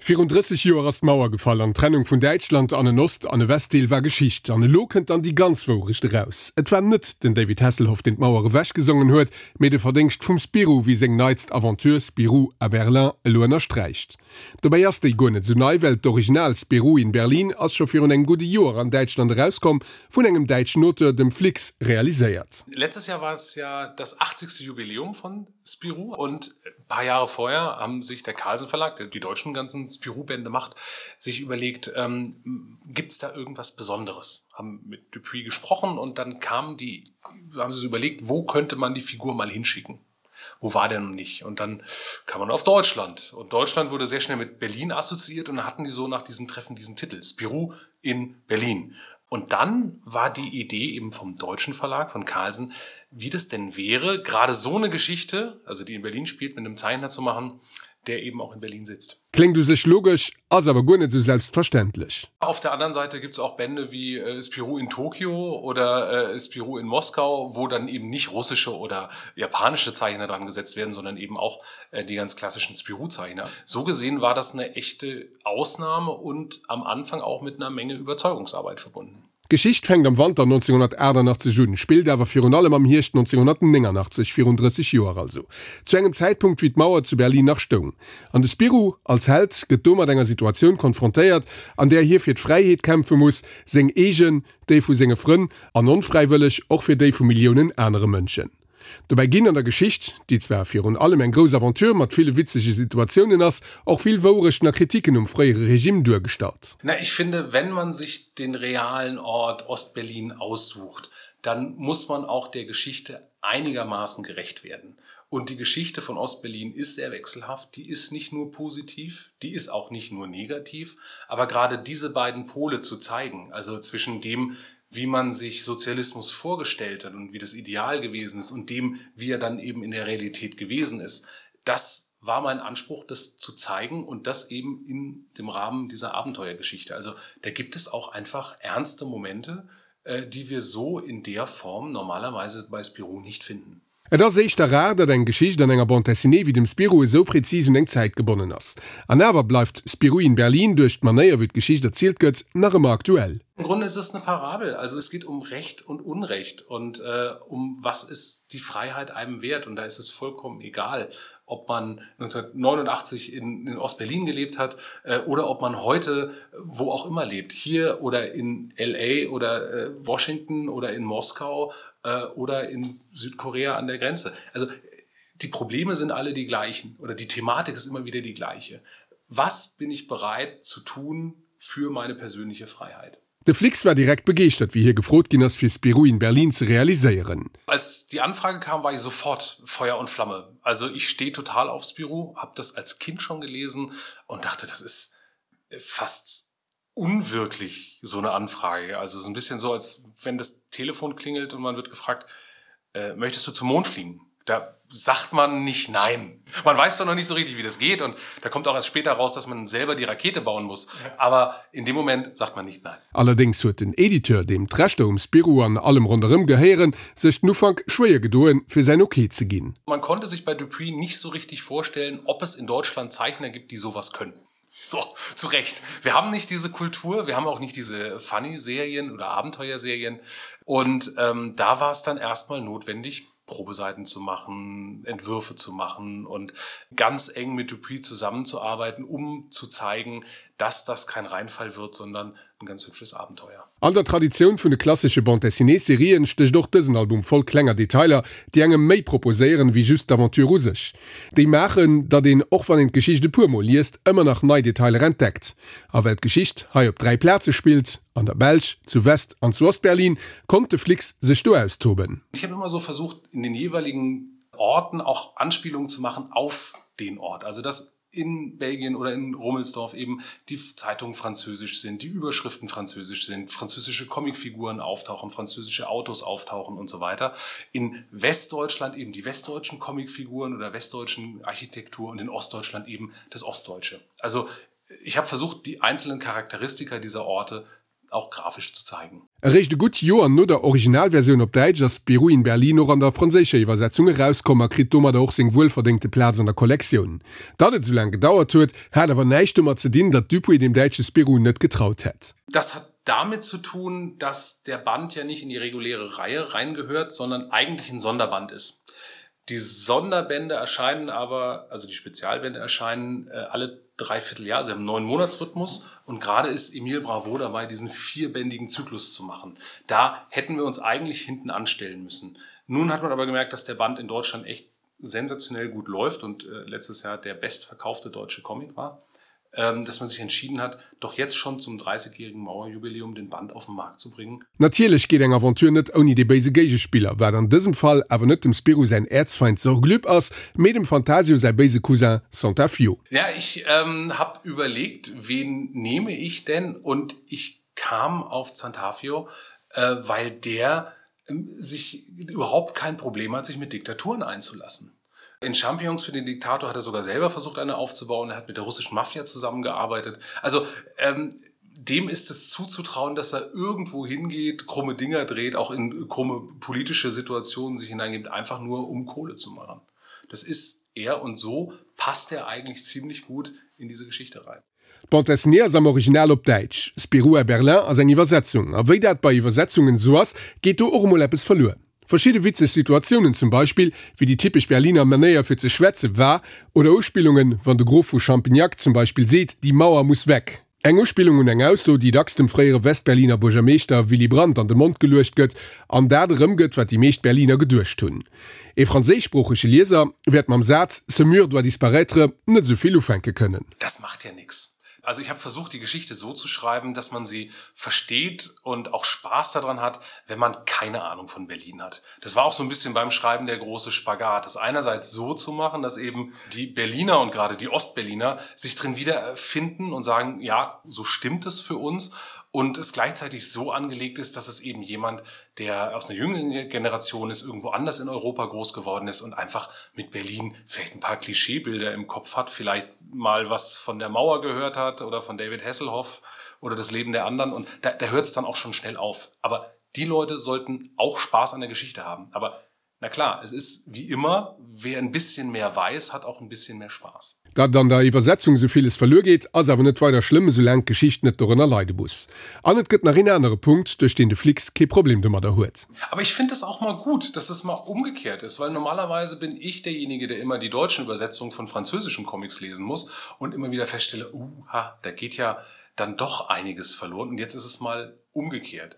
Virun 30 Joer ass d'Mauer gefall an d'Trennung vun Däitschland an en Ost an e Westdeel war Geschicht. An elo kënnt dann déi ganz Wourecht eraus. Et war net den David Hasselhoff, deen d'Mauer ewechgesongen huet, mee de Verdéngscht vum Spirou, wéi seng neitst Aventure Spirou à Berlin elo ënnersträicht. Dobäi ass déi guer net esou nei, well d'Original Spirou in Berlin ass scho virun engem gudde Joer an Däitschland erauskomm, vun engem däitschen Auteur, dem Flix, realiséiert. Letztes Jahr war es ja das 80. Jubiläum von Spirou und ein paar Jahre vorher haben sich der Carlsen Verlag, der die deutschen ganzen Spirou-Bände macht, sich überlegt, ähm, gibt es da irgendwas Besonderes? Haben mit Dupuis gesprochen und dann kam die, haben sie sich überlegt, wo könnte man die Figur mal hinschicken? Wo war der noch nicht? Und dann kam man auf Deutschland. Und Deutschland wurde sehr schnell mit Berlin assoziiert und dann hatten die so nach diesem Treffen diesen Titel Spirou in Berlin. Und dann war die Idee eben vom deutschen Verlag von Carlsen, wie das denn wäre, gerade so eine Geschichte, also die in Berlin spielt, mit einem Zeichner zu machen, der eben auch in Berlin sitzt. Kléngt u sech logesch, ass awer guer net sou selbstverständlech. Auf der anderen Seite gibt es auch Bände wie äh, Spirou in Tokio oder äh, Spirou in Moskau, wo dann eben nicht russische oder japanische Zeichner dran gesetzt werden, sondern eben auch äh, die ganz klassischen Spirou-Zeichner. So gesehen war das eine echte Ausnahme und am Anfang auch mit einer Menge Überzeugungsarbeit verbunden. D'Geschicht fänkt am Wanter 1988 un, spillt awer virun allem am Hierscht 1989, virun 30 Joer also, zu engem Zäitpunkt wéi d'Mauer zu Berlin nach stoung. An de Spirou als Held gëtt do mat enger Situatioun konfrontéiert, an där hie fir d'Fräiheet kämpfe muss, seng eegen, déi vu senge Frënn an onfräiwëlleg och fir déi vu Milliounen anere Mënschen. Dobäi ginn an der Geschicht, déi zwar virun allem eng grouss Aventure mat ville witzege Situatiounen ass, och vill Wourechten a Kritiken um fréiere Regime duergestallt. Na, ich finde, wenn man sich den realen Ort Ostberlin aussucht, dann muss man auch der Geschichte einigermaßen gerecht werden. Und die Geschichte von Ostberlin ist sehr wechselhaft, die ist nicht nur positiv, die ist auch nicht nur negativ, aber gerade diese beiden Pole zu zeigen, also zwischen dem, wie man sich Sozialismus vorgestellt hat und wie das Ideal gewesen ist und dem, wie er dann eben in der Realität gewesen ist, das war mein Anspruch, das zu zeigen und das eben in dem Rahmen dieser Abenteuergeschichte. Also da gibt es auch einfach ernste Momente, äh, die wir so in der Form normalerweise bei Spirou nicht finden. Et ass éischter rar, datt eng Geschicht an enger Bande dessinée wéi dem Spirou esou präzis un eng Zäit gebonnen ass. An awer bleift Spirou in Berlin duerch d'Manéier wéi d'Geschicht erzielt gëtt, nach ëmmer aktuell. Im Grunde ist es eine Parabel, also es geht um Recht und Unrecht und äh, um was ist die Freiheit einem wert und da ist es vollkommen egal, ob man 1989 in, in Ostberlin gelebt hat äh, oder ob man heute wo auch immer lebt, hier oder in LA oder äh, Washington oder in Moskau äh, oder in Südkorea an der Grenze. Also die Probleme sind alle die gleichen oder die Thematik ist immer wieder die gleiche. Was bin ich bereit zu tun für meine persönliche Freiheit? De Flix war direkt begeeschtert, wéi hie gefrot ginn ass, fir Spirou in Berlin ze realiséieren. Als die Anfrage kam, war ich sofort Feuer und Flamme. Also ich stehe total auf Spirou, habe das als Kind schon gelesen und dachte, das ist fast unwirklich so eine Anfrage. Also es ist ein bisschen so, als wenn das Telefon klingelt und man wird gefragt, äh, möchtest du zum Mond fliegen? Da sagt man nicht nein. Man weiß doch noch nicht so richtig, wie das geht und da kommt auch erst später raus, dass man selber die Rakete bauen muss. Aber in dem Moment sagt man nicht nein. Allerdéngs huet den Editeur, deem d'Rechter um Spirou an allem ronderëm gehéieren, sech den Ufank schwéier gedoen, fir säin Ok ze ginn. Man konnte sich bei Dupuis nicht so richtig vorstellen, ob es in Deutschland Zeichner gibt, die sowas können. So, zu Recht. Wir haben nicht diese Kultur, wir haben auch nicht diese Funny-Serien oder Abenteuerserien. Und ähm, da war es dann erstmal notwendig, Probeseiten zu machen, Entwürfe zu machen und ganz eng mit Dupuis zusammenzuarbeiten, um zu zeigen, dass das kein Reinfall wird, sondern ein ganz hübsches Abenteuer. An der Traditioun vun de klassesche Bande-dessinée-Serien stécht och dësen Album voll klenger Detailer, déi engem méi proposéieren, wéi just d'Aventure u sech. Déi maachen, datt een, och wann een d'Geschicht e puer Mol liest, ëmmer nach nei Detailer entdeckt. A well d'Geschicht hei op 3 Plaze spillt, an der Belsch, zu West an zu Ostberlin, konnt de Flix sech do austoben. Ich habe immer so versucht, in den jeweiligen Orten auch Anspielungen zu machen auf den Ort. Also dass in Belgien oder in Rummelsdorf eben die Zeitungen französisch sind, die Überschriften französisch sind, französische Comicfiguren auftauchen, französische Autos auftauchen und so weiter. In Westdeutschland eben die westdeutschen Comicfiguren oder westdeutschen Architektur und in Ostdeutschland eben das Ostdeutsche. Also ich habe versucht, die einzelnen Charakteristika dieser Orte. auch grafisch zu zeigen. Eréischt e gutt Joer no der Originalversioun op Däitsch ass Spirou in Berlin och an der franséischer Iwwersetzung erauskomm a kritt domadder och seng wuelverdéngte Plaz an der Kollektioun. Datt et esou laang gedauert huet, hat awer näischt domat ze dinn, datt Dupuis dem däitsche Spirou net getraut hätt. Das hat damit zu tun, dass der Band ja nicht in die reguläre Reihe reingehört, sondern eigentlich ein Sonderband ist. Die Sonderbände erscheinen aber, also die Spezialbände erscheinen äh, alle Dreivierteljahr, sie haben einen neuen Monatsrhythmus und gerade ist Emil Bravo dabei, diesen vierbändigen Zyklus zu machen. Da hätten wir uns eigentlich hinten anstellen müssen. Nun hat man aber gemerkt, dass der Band in Deutschland echt sensationell gut läuft und äh, letztes Jahr der bestverkaufte deutsche Comic war ähm, dass man sich entschieden hat, doch jetzt schon zum 30-jährigen Mauerjubiläum den Band auf den Markt zu bringen. Natierlech geet eng Aventure net ouni dee béise Géigespiller, wat an dësem Fall awer net dem Spirou säin Äerzfeind Sorglüb ass, mee dem Fantasio säi béise Cousin Santafio. Ja, ich ähm, hab überlegt, wen nehme ich denn und ich kam auf Zantafio, äh, weil der ähm, sich überhaupt kein Problem hat, sich mit Diktaturen einzulassen. In Champions für den Diktator hat er sogar selber versucht, eine aufzubauen. Er hat mit der russischen Mafia zusammengearbeitet. Also ähm, dem ist es zuzutrauen, dass er irgendwo hingeht, krumme Dinger dreht, auch in krumme politische Situationen sich hineingibt, einfach nur um Kohle zu machen. Das ist er und so passt er eigentlich ziemlich gut in diese Geschichte rein. D'Bande dessinée ass am Original op Däitsch, Spirou à Berlin ass eng Iwwersetzung. A wéi dat bei Iwwersetzungen esou ass, geet do och emol eppes verluer. Verschidde witzeg Situatiounen, zum Beispill wéi déi typesch Berliner Manéier fir ze schwätze war, oder Uspillungen, wann de Grof vu Champignac zum Beispill seet, Die Mauer muss weg. Eng Uspillung un eng Ausso, déi dacks dem fréiere Westberliner Buergermeeschter Willy Brandt an de Mond geluecht gëtt an dat erëmgëtt, wat déi meescht Berliner geduecht hunn. Ee franséischsproochege Lieser wäert mam Saz Ce mur doit disparaître net esou vill ufänke kënnen. Das macht ja nix. Also ich habe versucht, die Geschichte so zu schreiben, dass man sie versteht und auch Spaß daran hat, wenn man keine Ahnung von Berlin hat. Das war auch so ein bisschen beim Schreiben der große Spagat, das einerseits so zu machen, dass eben die Berliner und gerade die Ostberliner sich drin wiederfinden und sagen, ja, so stimmt es für uns und es gleichzeitig so angelegt ist, dass es eben jemand, der aus einer jüngeren Generation ist, irgendwo anders in Europa groß geworden ist und einfach mit Berlin vielleicht ein paar Klischeebilder im Kopf hat, vielleicht mal was von der Mauer gehört hat oder von David Hasselhoff oder das Leben der anderen und da, da hört es dann auch schon schnell auf. Aber die Leute sollten auch Spaß an der Geschichte haben. Aber na klar, es ist wie immer, wer ein bisschen mehr weiß, hat auch ein bisschen mehr Spaß. Datt an der Iwwersetzung sou villes verluer geet, ass awer net weider schlëmm, esoulaang d'Geschicht net dorënner leide muss. An et gëtt nach een anere Punkt, duerch deen de Flix kee Problem domadder huet. Aber ich find das auch mal gut, dass es mal umgekehrt ist, weil normalerweise bin ich derjenige, der immer die deutschen Übersetzungen von französischen Comics lesen muss und immer wieder feststelle, uha, da geht ja dann doch einiges verloren und jetzt ist es mal umgekehrt.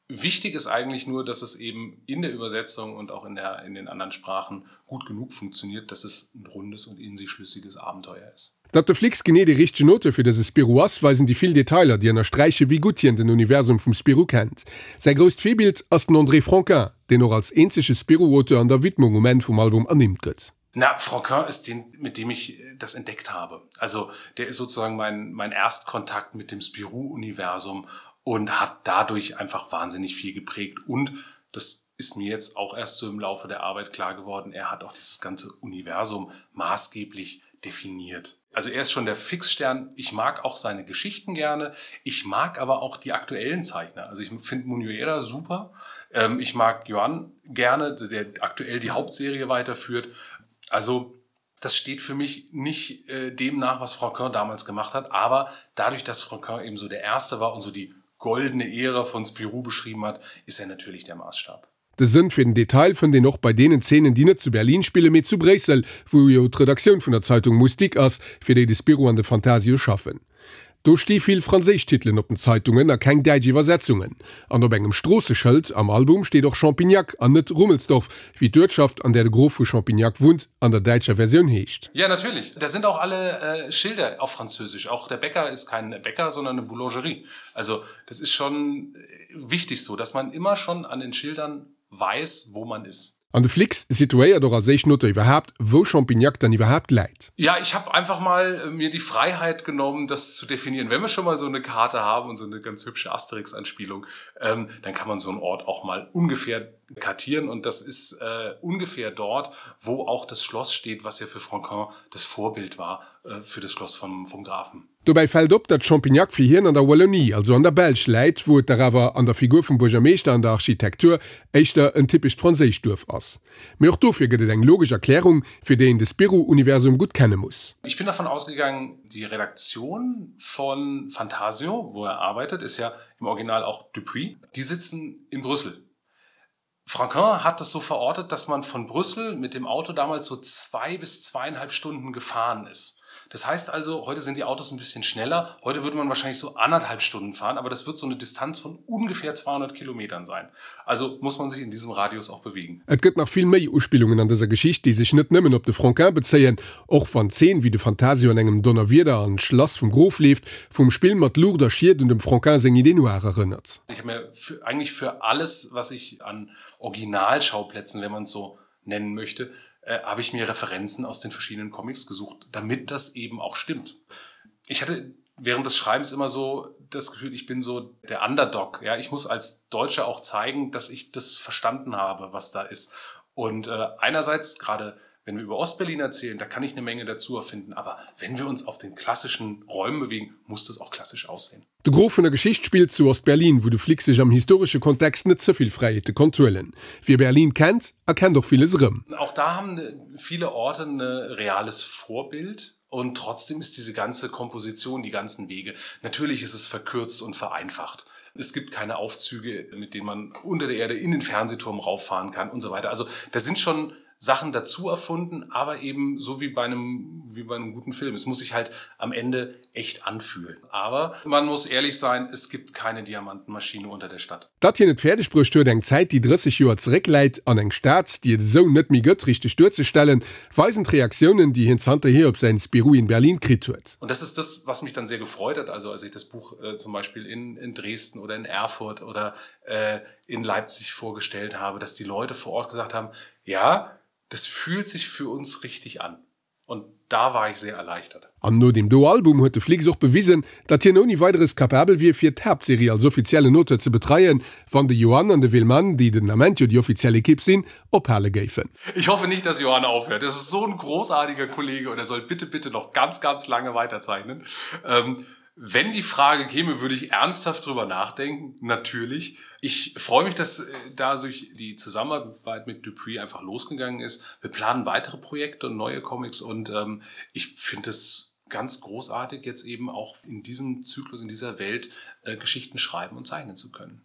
Wichtig ist eigentlich nur, dass es eben in der Übersetzung und auch in der in den anderen Sprachen gut genug funktioniert, dass es ein rundes und in sich schlüssiges Abenteuer ist. Datt de Flix genee dee richtegen Auteur fir dëse Spirou ass, weisen déi vill Detailer, déi ënnersträiche wéi gutt hien den Universum vum Spirou kennt. Säi grousst Virbild ass den André Franquin, deen och als eenzege Spirou-Auteur an der Widmung um Enn vum Album ernimmt gëtt. Na, Franquin ist den, mit dem ich das entdeckt habe. Also der ist sozusagen mein, mein Erstkontakt mit dem Spirou-Universum und hat dadurch einfach wahnsinnig viel geprägt. Und das ist mir jetzt auch erst so im Laufe der Arbeit klar geworden, er hat auch dieses ganze Universum maßgeblich definiert. Also er ist schon der Fixstern. Ich mag auch seine Geschichten gerne. Ich mag aber auch die aktuellen Zeichner. Also ich finde Munuera super. Ähm, ich mag Johann gerne, der aktuell die Hauptserie weiterführt. Also das steht für mich nicht äh, dem nach, was Frau Körn damals gemacht hat, aber dadurch, dass Frau Körn eben so der erste war und so die goldene Ära von Spirou beschrieben hat, ist er natürlich der Maßstab. De Sënn fir den Detail fënnt een och bei deenen Zeenen, déi net zu Berlin spillen, mee zu Bréissel, wou jo d'Redaktioun vun der Zeitung Moustique ass, fir déi de Spirou an de Fantasio schaffen. Do sti vill franséisch Titelen op den Zeitungen a keng däitsch Iwwersetzungen. An op engem Stroosseschëld am Album steet och Champignac an net Rummelsdorf, wéi d'Uertschaft, an där de Grof vu Champignac wunnt, an der däitscher Versioun heescht. Ja, natürlich. Da sind auch alle Schilder auf Französisch. Auch der Bäcker ist kein Bäcker, sondern eine Boulangerie. Also das ist schon wichtig so, dass man immer schon an den Schildern weiß, wo man ist. An de Flix situéiert och als éischten Auteur iwwerhaapt, wou Champignac dann iwwerhaapt läit. Ja, ich habe einfach mal mir die Freiheit genommen, das zu definieren. Wenn wir schon mal so eine Karte haben und so eine ganz hübsche Asterix-Anspielung, ähm, dann kann man so einen Ort auch mal ungefähr kartieren. Und das ist äh, ungefähr dort, wo auch das Schloss steht, was ja für Franquin das Vorbild war äh, für das Schloss vom, vom Grafen. Dobäi fält op, datt Champignac fir hien an der Wallonie, also an der Belsch läit, wou et dach awer an der Figur vum Buergermeeschter an der Architektur éischter en typescht franséischt Duerf ass. Mee och dofir gëtt et eng logesch Erklärung, fir déi een de Spirou-Universum gutt kenne muss. Ich bin davon ausgegangen, die Redaktion von Fantasio, wo er arbeitet, ist ja im Original auch Dupuis, die sitzen in Brüssel. Franquin hat das so verortet, dass man von Brüssel mit dem Auto damals so zwei bis zweieinhalb Stunden gefahren ist. Das heißt also, heute sind die Autos ein bisschen schneller. Heute würde man wahrscheinlich so anderthalb Stunden fahren, aber das wird so eine Distanz von ungefähr 200 Kilometern sein. Also muss man sich in diesem Radius auch bewegen. Et gëtt nach vill méi Uspillungen an dëser Geschicht, déi sech net nëmmen op de Franquin bezéien, och wann d'Zeen, wéi de Fantasio an engem Donnerwieder an d'Schlass vum Grof leeft, vum Spill mat Luucht a Schied un dem Franquin seng Idée noire erënnert. Ich habe mir für, eigentlich für alles, was ich an Originalschauplätzen, wenn man es so nennen möchte, äh, habe ich mir Referenzen aus den verschiedenen Comics gesucht, damit das eben auch stimmt. Ich hatte während des Schreibens immer so das Gefühl, ich bin so der Underdog. Ja, ich muss als Deutscher auch zeigen, dass ich das verstanden habe, was da ist. Und äh, einerseits gerade wenn wir über Ostberlin erzählen, da kann ich eine Menge dazu erfinden, aber wenn wir uns auf den klassischen Räumen bewegen, muss das auch klassisch aussehen. De Gros vun der Geschicht spillt zu Ost-Berlin, wou de Flick sech am historesche Kontext net ze vill Fräiheete konnt huelen. Wie Berlin kennt, erkennt och villes erëm. Auch da haben viele Orte 'n reales Vorbild und trotzdem ist diese ganze Komposition, die ganzen Wege, natürlich ist es verkürzt und vereinfacht. Es gibt keine Aufzüge, mit denen man unter der Erde in den Fernsehturm rauffahren kann und so weiter. Also da sind schon Sachen dazu erfunden, aber eben so wie bei einem, wie bei einem guten Film. Es muss sich halt am Ende echt anfühlen. Aber man muss ehrlich sein, es gibt keine Diamantenmaschine unter der Stadt. Datt hien et fäerdeg bruecht huet, eng Zäit, déi 30 Joer zeréckläit, an eng Stad, déi et esou net méi gëtt, richteg duerzestellen, weisen d'Reaktiounen, déi hien zanterhier op säin Spirou in Berlin kritt huet. Und das ist das, was mich dann sehr gefreut hat, also als ich das Buch äh, zum Beispiel in, in Dresden oder in Erfurt oder äh, in Leipzig vorgestellt habe, dass die Leute vor Ort gesagt haben: „Ja, das fühlt sich für uns richtig an.“ Und da war ich sehr erleichtert. An no deem do Album huet de Flix och bewisen, datt hien ouni Weideres capabel wier fir d'Haaptserie als offiziellen Auteur ze betreien, wann de Johan an de Willmann, déi den Ament jo déi offiziell Ekipp sinn, ophale géifen. Ich hoffe nicht, dass Johan aufhört. Das ist so ein großartiger Kollege und er soll bitte, bitte noch ganz, ganz lange weiterzeichnen. Ähm, Wenn die Frage käme, würde ich ernsthaft drüber nachdenken, natürlich. Ich freue mich, dass äh, da durch die Zusammenarbeit mit Dupuis einfach losgegangen ist. Wir planen weitere Projekte und neue Comics und ähm, ich finde es ganz großartig, jetzt eben auch in diesem Zyklus, in dieser Welt äh, Geschichten schreiben und zeichnen zu können.